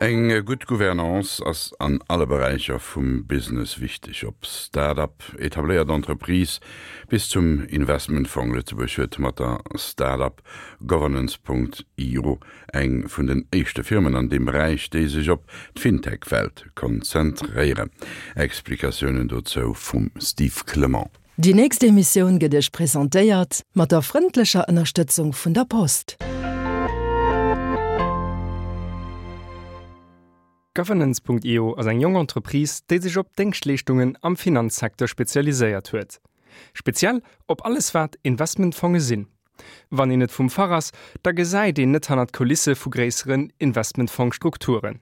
Eng gutt Gouvernance ass an alle Beräicher vum Business wichteg, ob Start-up, etabléiert Entreprise bis zum Investmentfong. Lëtzebuerg huet mat der Start-up Governance. Io eng vun den éischte Firmen an deem Beräich, déi sech op d'Fintech-Welt konzentréieren. Explikatiounen dozou vum Steve Clement. Déi nächst Emissioun gëtt Iech presentéiert mat der frëndlecher Ënnerstëtzung vun der Post. Governance.io ass eng jonk Entreprise, déi sech op Déngschtleeschtungen am Finanzsecteur spezialiséiert huet. Speziell op alles wat Investmentfonge sinn. Wann een net vum Fach ass, da gesäit een net hannert d'Kulisse vu gréisseren Investmentfong-Strukturen.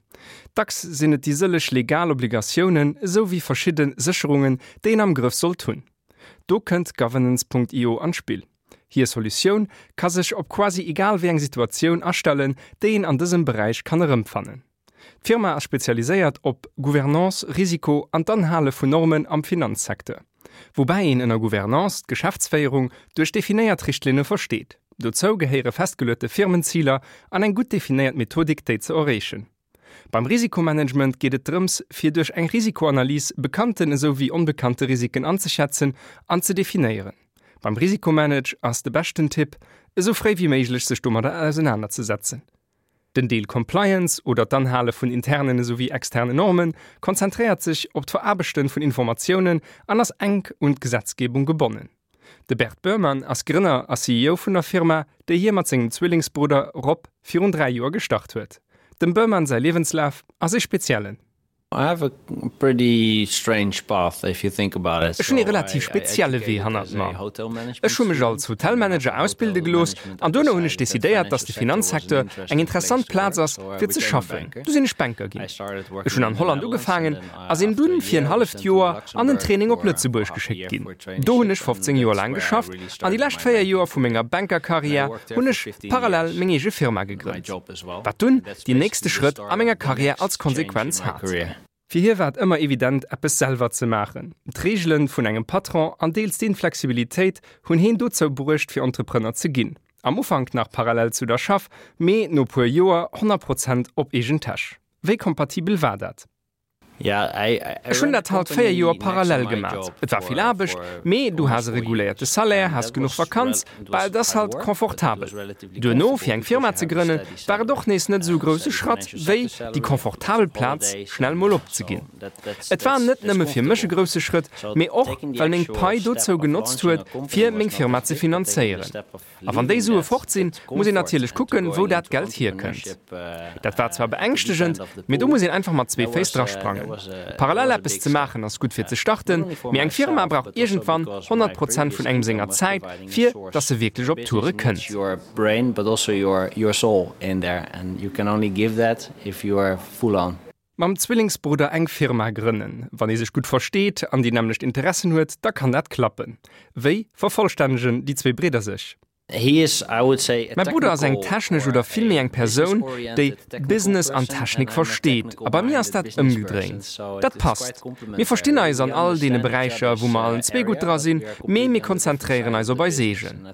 Dacks sinn et déi sëlleg legal Obligatiounen esou wéi verschidde Sécherungen, déi een am Grëff sollt hunn. Do kënnt Governance.io an d'Spill. Hir Solutioun ka sech op quasi egal wéi eng Situatioun astellen, déi een an dësem Beräich kann erëmfannen. D'Firma ass spezialiséiert op Gouvernance, Risiko an d'Anhale vun Normen am Finanzsecteur. Woubäi een ënner Gouvernance d'Geschäftsféierung duerch definéiert Richtlinne versteet. Dozou gehéiere festgeluete Firmenziler an eng gutt definéiert Methodik déi ze erreechen. Beim Risikomanagement geet et drëms fir duerch eng Risikoanalys bekannten esou wéi onbekannte Risiken anzeschätzen an ze definéieren. Beim Risikomanage ass de beschten Tipp, esou fréi wéi méiglech sech domadder ausenanerzesetzen. Den Deel Compliance, oder d'Anhale vun internen esou wéi externen Normen, konzentréiert sech op d'Veraarbechte vun Informatiounen an ass enk un d'Gesetzgebung gebonnen. De Bert Boerman ass Grënner a CEO vun der Firma, déi hie mat sengem Zwillingsbrudder Rob virun 3 Joer gestart huet. Dem Boerman säi Liewenslaf ass ee speziellen. Ech hunn ee relativ spezielle Wee hannert mer. Ech hu mech als Hotelmanager ausbilde gelooss an duerno hunn ech decidéiert, datt de Finanzsecteur eng interessant Plaz ass, fir ze schaffen. Du sinn ech Banker ginn. Ech hunn an Holland ugefaangen a sinn dunn fir en halleft Joer an en Training op Lëtzebuerg geschéckt ginn. Do hunn ech 15 Joer laang geschafft an déi lescht 4 Joer vu menger Bankerkarriär hunn ech parallel meng eege Firma gegrënnt, wat dunn déi nächste Schrëtt a menger Karriär als Konsequenz hat. Fir hie war et ëmmer evident, eppes selwer ze maachen. D'Reegele vun engem Patron an deels d'Inflexibilitéit hunn heen dozou bruecht, fir Entrepreneur ze ginn. Am Ufank nach parallel zu der Schaff, mee no puer Joer 100 Prozent op eegen Täsch. Wéi kompatibel war dat? Ech hunn dat halt 4 Joer parallel gemat. Et war vill Aarbecht, mee du has e reguléierte Salaire, has genuch Vakanz, bah et ass halt confortabel. Duerno fir eng Firma ze grënnen, war et och nees net esou e grousse Schratt, wéi déi confortabel Plaz schnell mol opzeginn. Et war net nëmme fir mech e grousse Schrëtt, mee och well meng Pai dozou genotzt huet, fir meng Firma ze finanzéieren. A wann déi Sue fort sinn, muss een natierlech kucken, wou dat Geld hierkënnt. Dat war zwar beängschtegend, mee do muss een einfach mat zwee Féiss drasprangen. Parallel eppes ze maachen ass gutt fir ze starten, mee eng Firma brauch iergendwann 100 Prozent vun engem senger Zäit, fir dass se wierklech op Toure kënnt. Mam Zwillingsbrudder eng Firma grënnen. Wann ee sech gutt versteet an déi nämmlecht Interessen huet, da kann dat klappen. Wéi vervollstännegen déi zwee Bridder sech? Mäi Brudder ass eng technesch oder villméi eng Persoun, déi Business an Technik versteet a bei mir ass dat ëmgedréint. Dat passt. Mir verstinn eis an all deene Beräicher, wou mer allen zwee gutt dra sinn, mee mir konzentréieren eis op eis eegen.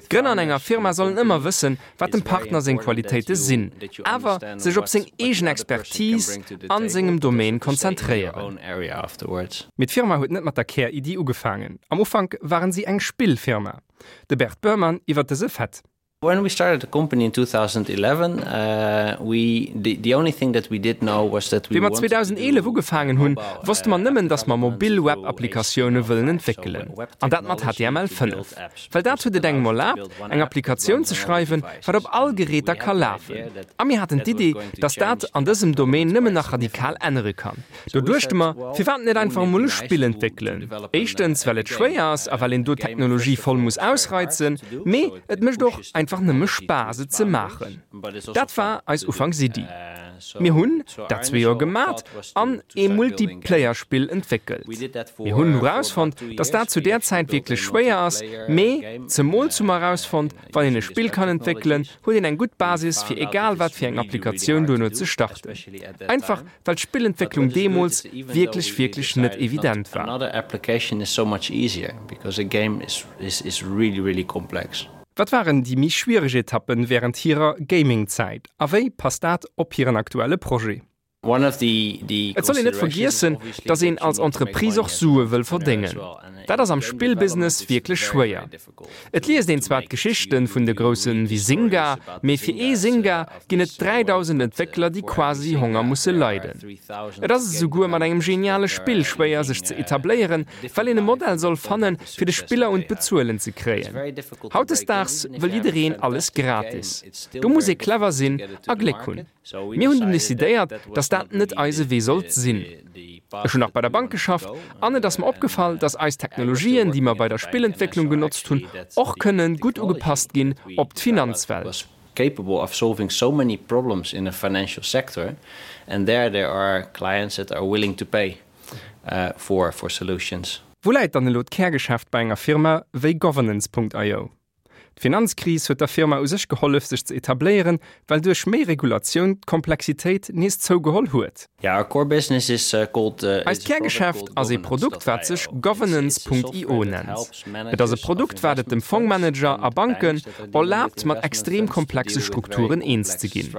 D'Grënner an enger Firma sollen ëmmer wëssen, wat dem Partner seng Qualitéite sinn, awer sech op seng eegen Expertise a sengem Domaine konzentréieren. Mee d'Firma huet net mat der Kär-Iddi ugefaangen. Am Ufank waren si eng Spillfirma. De Bert Boerman iwwer dëse Fait. When we started the company in 2011, we the only thing that we did know was that we Wéi mer 2011 ugefaangen hunn, wosste mer nëmmen, dass mer mobil Web-Applikatioune wëllen entwéckelen. An dat mat HTML 5. Well dat huet et engem erlaabt, eng Applikatioun ze schreiwen, wat op all Geräter ka lafen. A mir haten d'Idee, dass dat an dësem Domaine nëmmen nach radikal ännere kann. Do duechte mer, firwat net einfach emol e Spill entwéckelen? Éischtens, well et schwéier ass a well een do d'Technologie voll muss ausreizen, mee et mécht och einfach nëmme Spaass, et ze maachen. Dat war eis Ufanksiddi. Mir hunn dat zwee Joer gemat an ee Multiplayer-Spill entwéckelt. Mir hunn erausfonnt, dass dat zu där Zäit wierklech schwéier ass, mee zemools hu mer erausfonnt, wann een e Spill kann entwéckelen, huet een eng gutt Basis, fir egal wat fir eng Applikatioun duerno ze starten. Einfach well d'Spillentwécklung deemools wierklech, wierklech net evident war. Wat waren déi méi schwiereg Etappen wärend hirer Gaming-Zäit a wéi passt dat op hiren aktuelle Projet? Et soll een net vergiessen, datt een als Entreprise och Sue wëll verdéngen. Dat ass am Spillbusiness wierklech schwéier. Et liest een zwar d'Geschichten vun de groussen wéi Zynga, mee fir ee Zynga ginn et 3.000 Entwéckler déi quasi Honger musse leiden. Et ass esouguer mat engem geniale Spill schwéier sech ze etabléieren, well een e Modell soll fannen fir de Spiller un d'Bezuelen ze kréien. Hautdesdaags wëll jiddereen alles gratis. Do muss ee clever sinn a Gléck hunn. Mir hunn dunn decidéiert, dass dat net eise Wee sollt sinn. Ech hunn nach bei der Bank geschafft an et ass mer opgefall, dass eis Technologien, déi mer bei der Spillentwécklung genotzt hunn, och kënne gutt ugepasst ginn op d'Finanzwelt. Wou läit dann elo d'Kärgeschäft bei enger Firma wéi Governance.io? D'Finanzkris huet der Firma u sech gehollef sech ze etabléieren, well duerch méi Regulatioun d'Komplexitéit nees zougeholl huet. Eist Kärgeschäft ass ee Produkt wat sech Governance.io nennt. Et ass e Produkt wat et dem Fongmanager a Banken erlaabt mat extrem komplexe Strukturen eens ze ginn.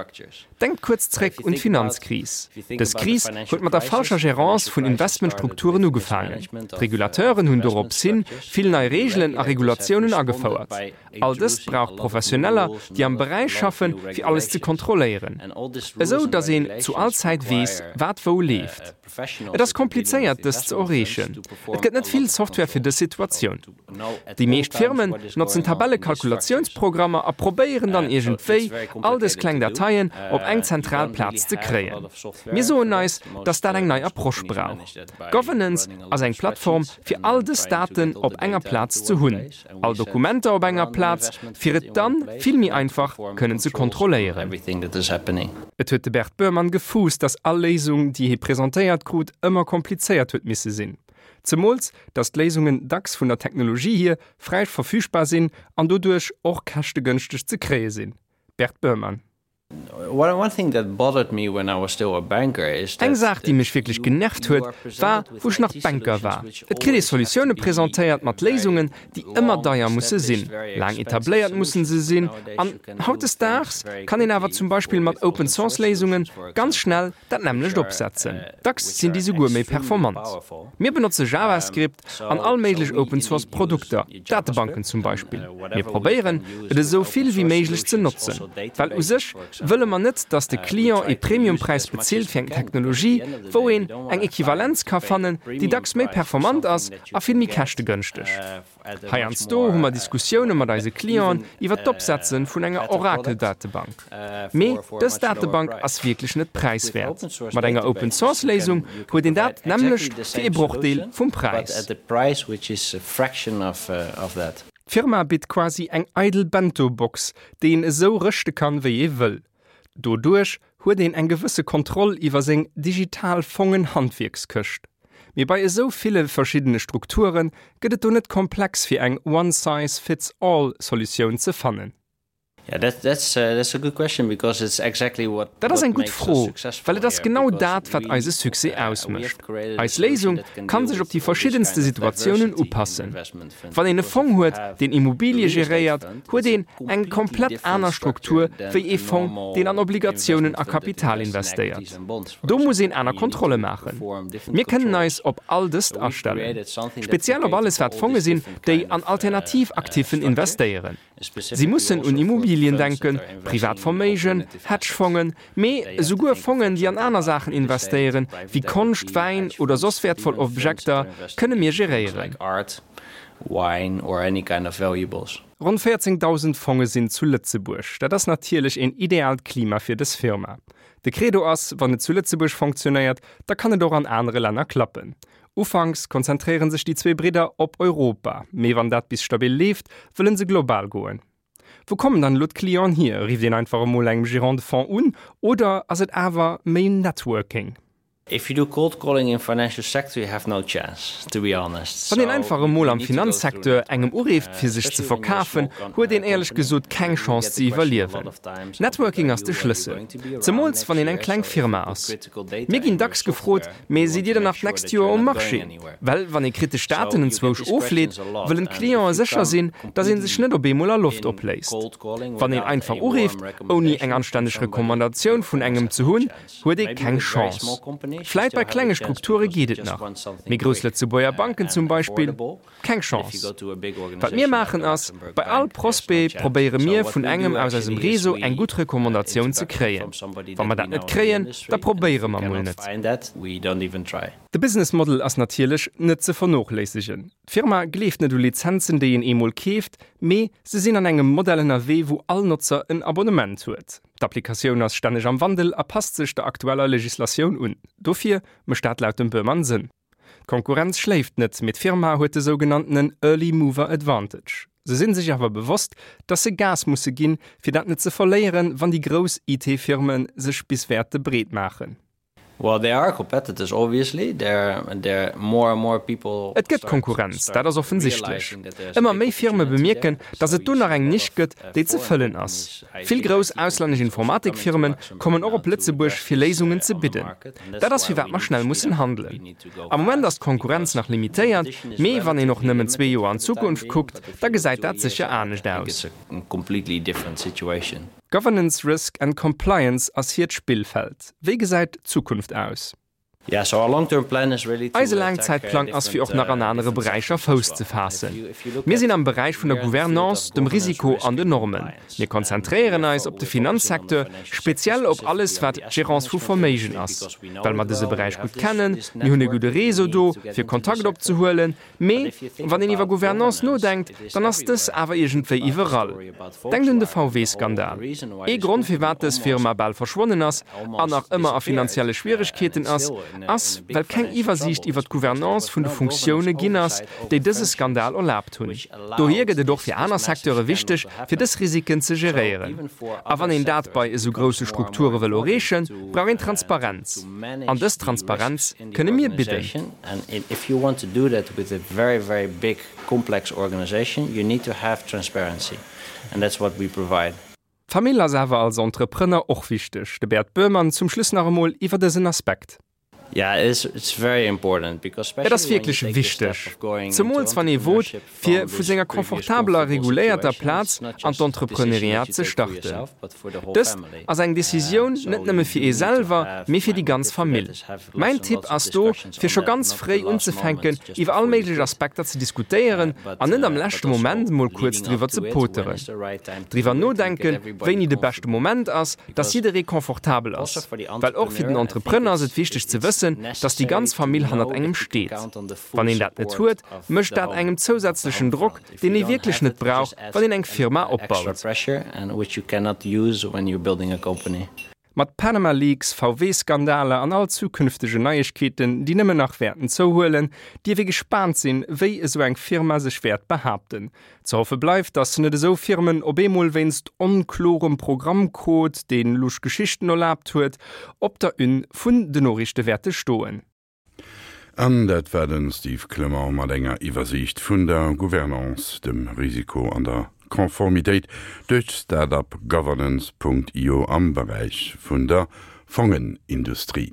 Denkt kuerz zréck un d'Finanzkris. Dës Kris huet mat der falscher Gérance vun Investmentstrukturen ugefaangen. D'Regulateuren hunn dorops hin vill nei Reegelen a Regulatiounen agefouert. All dëst brauch Professioneller, déi am Beräich schaffen, fir alles ze kontrolléieren, esou datt een zu all Zäit weess, wat wou leeft. Et ass komplizéiert, dëst ze erreechen. Et gëtt net vill Software fir dës Situatioun. Déi meescht Firmen notzen Tabellekalkulatiounsprogrammer a probéieren dann iergendwéi, all dës kleng Dateien op eng zentral Plaz ze kréien. Mir soen eis, dass dat eng nei Approche brauch. Governance ass eng Plattform, fir all dës Daten op enger Plaz ze hunn. All Dokumenter op enger Plaz, fir et dann vill méi einfach kënnen ze kontrolléieren. Et huet de Bert Boerman gefuusst, datt all Léisung, déi hie presentéiert krut, ëmmer komplizéiert huet misse sinn. Zemools, datt d'Léisungen dacks vun der Technologie hier fräi verfügbar sinn an doduerch och käschtegënschteg ze kréie sinn. Bert Boerman. Eng Saach, déi mech wierklech genervt huet, war, wou ech nach Banker war. Et kritt ee Solutioune presentéiert mat Léisungen, déi ëmmer deier musse sinn, laang etabléiert mussen se sinn. An hautdesdaags kann een awer zum Beispill mat Open-Source-Léisunge ganz schnell dat nämmlecht opsetzen. Dacks sinn déi souguer méi performant. Mir benotze JavaScript an all méiglech Open Source Produkter, Datebanken zum Beispill. Mir probéieren, et esou vill wéi méiglech ze notzen, well u sech wëlle mer net, dass de Client ee Premiumpräis bezilt fir eng Technologie, wou een eng Equivalenz ka fannen, déi dacks méi performant ass a vill méi käschtegënschteg. Heiansdo hu mer Diskussioune mat eise Clienten iwwer d'Opsetze vun enger Oracle-Datebank. Mee dës Datebank ass wierklech net präiswäert. Mat enger Open-Source-Léisung huet een dat nämmlecht fir ee Brochdeel vum Präis. D'Firma bitt quasi eng eidel Bento-Box, déi een esou rëschte kann, wéi ee wëll. Doduerch huet een eng gewësse Kontroll iwwer seng digital Fongen-Handwierkskëscht. Mee bei esou ville verschiddene Strukture gëtt et do net komplex fir eng One-Size-Fits-All Solutioun ze fannen? Dat ass eng gutt Fro, well et ass genau dat, wat eise Succès ausmécht. Eis Léisung kann sech op déi verschiddenste Situatiounen upassen. Wann een e Fong huet, deen Immobilie geréiert, huet een eng komplett aner Struktur wéi ee Fong, deen an Obligatiounen a Kapital investéiert. Do muss een aner Kontrolle maachen. Mir kënnen eis op all dëst astellen. Speziell op alles wat Fonge sinn, déi an alternativ Actifen investéieren. Si mussen un Immobilien denken, privat Verméigen, Hedgefongen, mee esouguer Fongen, déi an aner Saachen investéieren, wéi Konscht, Wäin oder soss wäertvoll Objekter, kënne mir geréieren. Ronn 14.000 Fonge sinn zu Lëtzebuerg. Dat ass natierlech een ideaalt Klima fir dës Firma. De Credo ass, wann et zu Lëtzebuerg fonctionéiert, da kann et och an anere Länner klappen. Ufanks konzentréiere sech déi zwee Bridder op Europa, mee wann dat bis stabil leeft, wëllen se global goen. Wou kommen dann elo d'Clienten hier? Rifft een einfach emol engem Gérant de Fonds un oder ass et awer méi Networking? If you do cold calling in financial sector you have no chance, to be honest. Wann een einfach emol am Finanzsecteur engem ureeft fir sech ze verkafen, huet een éierlech gesot keng Chance ze iwwerliewen. Networking ass de Schlëssel, zemools wann een eng kleng Firma ass. Mir ginn dacks gefrot, mee sidd Dir dann nach d'nächst Joer um Marché? Well wann ee kritesch Daten enzwousch ofleet, wëllen d'Clientë sécher sinn, datt ee sech net op eemol a Loft opléist. Wann een einfach ureeft, ouni eng anstänneg Recommandatioun vun engem ze hunn, huet ee keng Chance. Vläit bei klenge Strukture geet et nach, mee grouss Lëtzebuerger Banken zum Beispill, keng Chance. Wat mir maachen ass, bei all Prospect probéiere mir vun engem aus eisem Réseau eng gutt Recommandatioun ze kréien. Wa mer dat net kréien, da probéiere mer mol net. De Business Model ass natierlech net ze vernochléissegen. D'Firma gleeft net u Lizenzen, déi een eemol keeft, mee se sinn an engem Modell ënnerwee, wou all Notzer en Abonnement huet. D'Applikatioun ass stänneg am Wandel a passt sech der aktueller Legislatioun un. Dofir mécht dat laut dem Boermann Sënn. D'Konkurrenz schléift net, mee d'Firma huet de sougenanntenen Early Mover Advantage. Se sinn sech awer bewosst, dass se Gas musse ginn, fir dat net ze verléieren, wann déi grouss IT-Firme sech bis wäerte breet maachen. Well there are competitors obviously, there there more and more people Et gëtt Konkurrenz, dat ass offensichtlech. Ëmmer méi Firme bemierken, datt et do nach eng Nisch gëtt, déi ze fëllen ass. Vill grouss auslännesch Informatikfirme kommen och op Lëtzebuerg, fir Léisungen ze bidden. Dat ass firwat mer schnell mussen handelen. Am Moment ass d'Konkurrenz nach limitéiert, mee wann een och nëmmen zwee Joer an d'Zukunft kuckt, da gesäit dat sécher anescht aus. Governance, Risk and Compliance ass hiert Spillfeld. Wéi gesäit d'Zukunft aus? Eise Laangzäitplang ass fir och nach an anere Beräicher Fouss ze faassen. Mir sinn am Beräich vun der Gouvernance, dem Risiko an den Normen. Mir konzentréieren eis op de Finanzsecteur, speziell op alles wat d'Gérance vu Verméigen ass, well mer dëse Beräich gutt kennen. Mir hunn e gudde Réseau do, fir Kontakt opzehuelen. Mee wann een iwwer Gouvernance nodenkt, dann ass dës awer iergendwéi iwwerall. Denkt un de VW-Skandal. Ee Grond firwat dës Firma bal verschwonnen ass an nach ëmmer a finanzielle Schwieregkeeten ass, ass well keng Iwwersiicht iwwer d'Gouvernance vun de Funktioune ginn ass, déi dëse Skandal erlaabt hunn. Dohier gëtt et och fir aner Secteure wichteg, fir dës Risiken ze geréieren. A wann een dat bei esou grousse Strukture wëll erreechen, brauch een Transparenz. An dës Transparenz kënne mir bidden. D'Famill ass awer als Entrepreneur och wichteg. De Bert Boerman zum Schluss nach emol iwwer dësen Aspekt. Et ass wierklech wichteg, zemools wann ee wot, fir vu senger confortabeler reguléierter Plaz an d'Entrepreneuriat ze starten. Dëst ass eng Decisioun net nëmme fir ee selwer, mee fir déi ganz Famill. Mäin Tipp ass do, fir scho ganz fréi unzefänken, iwwer all méiglech Aspekter ze diskutéieren an net am leschte Moment mol kuerz driwwer ze poteren. Driwwer nodenken, wéini de beschte Moment ass, dass jidderee confortabel ass. Well och fir den Entrepreneur ass et wichteg ze wëssen, dass déi ganz Famill hannert engem steet. Wann een dat net huet, mécht dat engem zousätzlechen Drock, deen ee wierklech net brauch, wann een eng Firma opbaut. Mat Panama Leaks, VW-Skandaler an all zukünftegen Neiegkeeten, déi nëmmen nach wäerten zouhuelen, dierf ee gespaant sinn, wéi esou eng Firma sech wäert behaapten. Ze hoffe bleift, datt net esou Firmen op eemol wéinst onklorem Programmcode, dee lusch Geschichten erlaabt huet, op der Une vun de Noriichte wäerte stoen. An dat war de Steve Clement mat enger Iwwersiicht vun der Gouvernance, dem Risiko an der Conformitéit duerch d'Start-up Governance.io am Beräich vun der Fongenindustrie.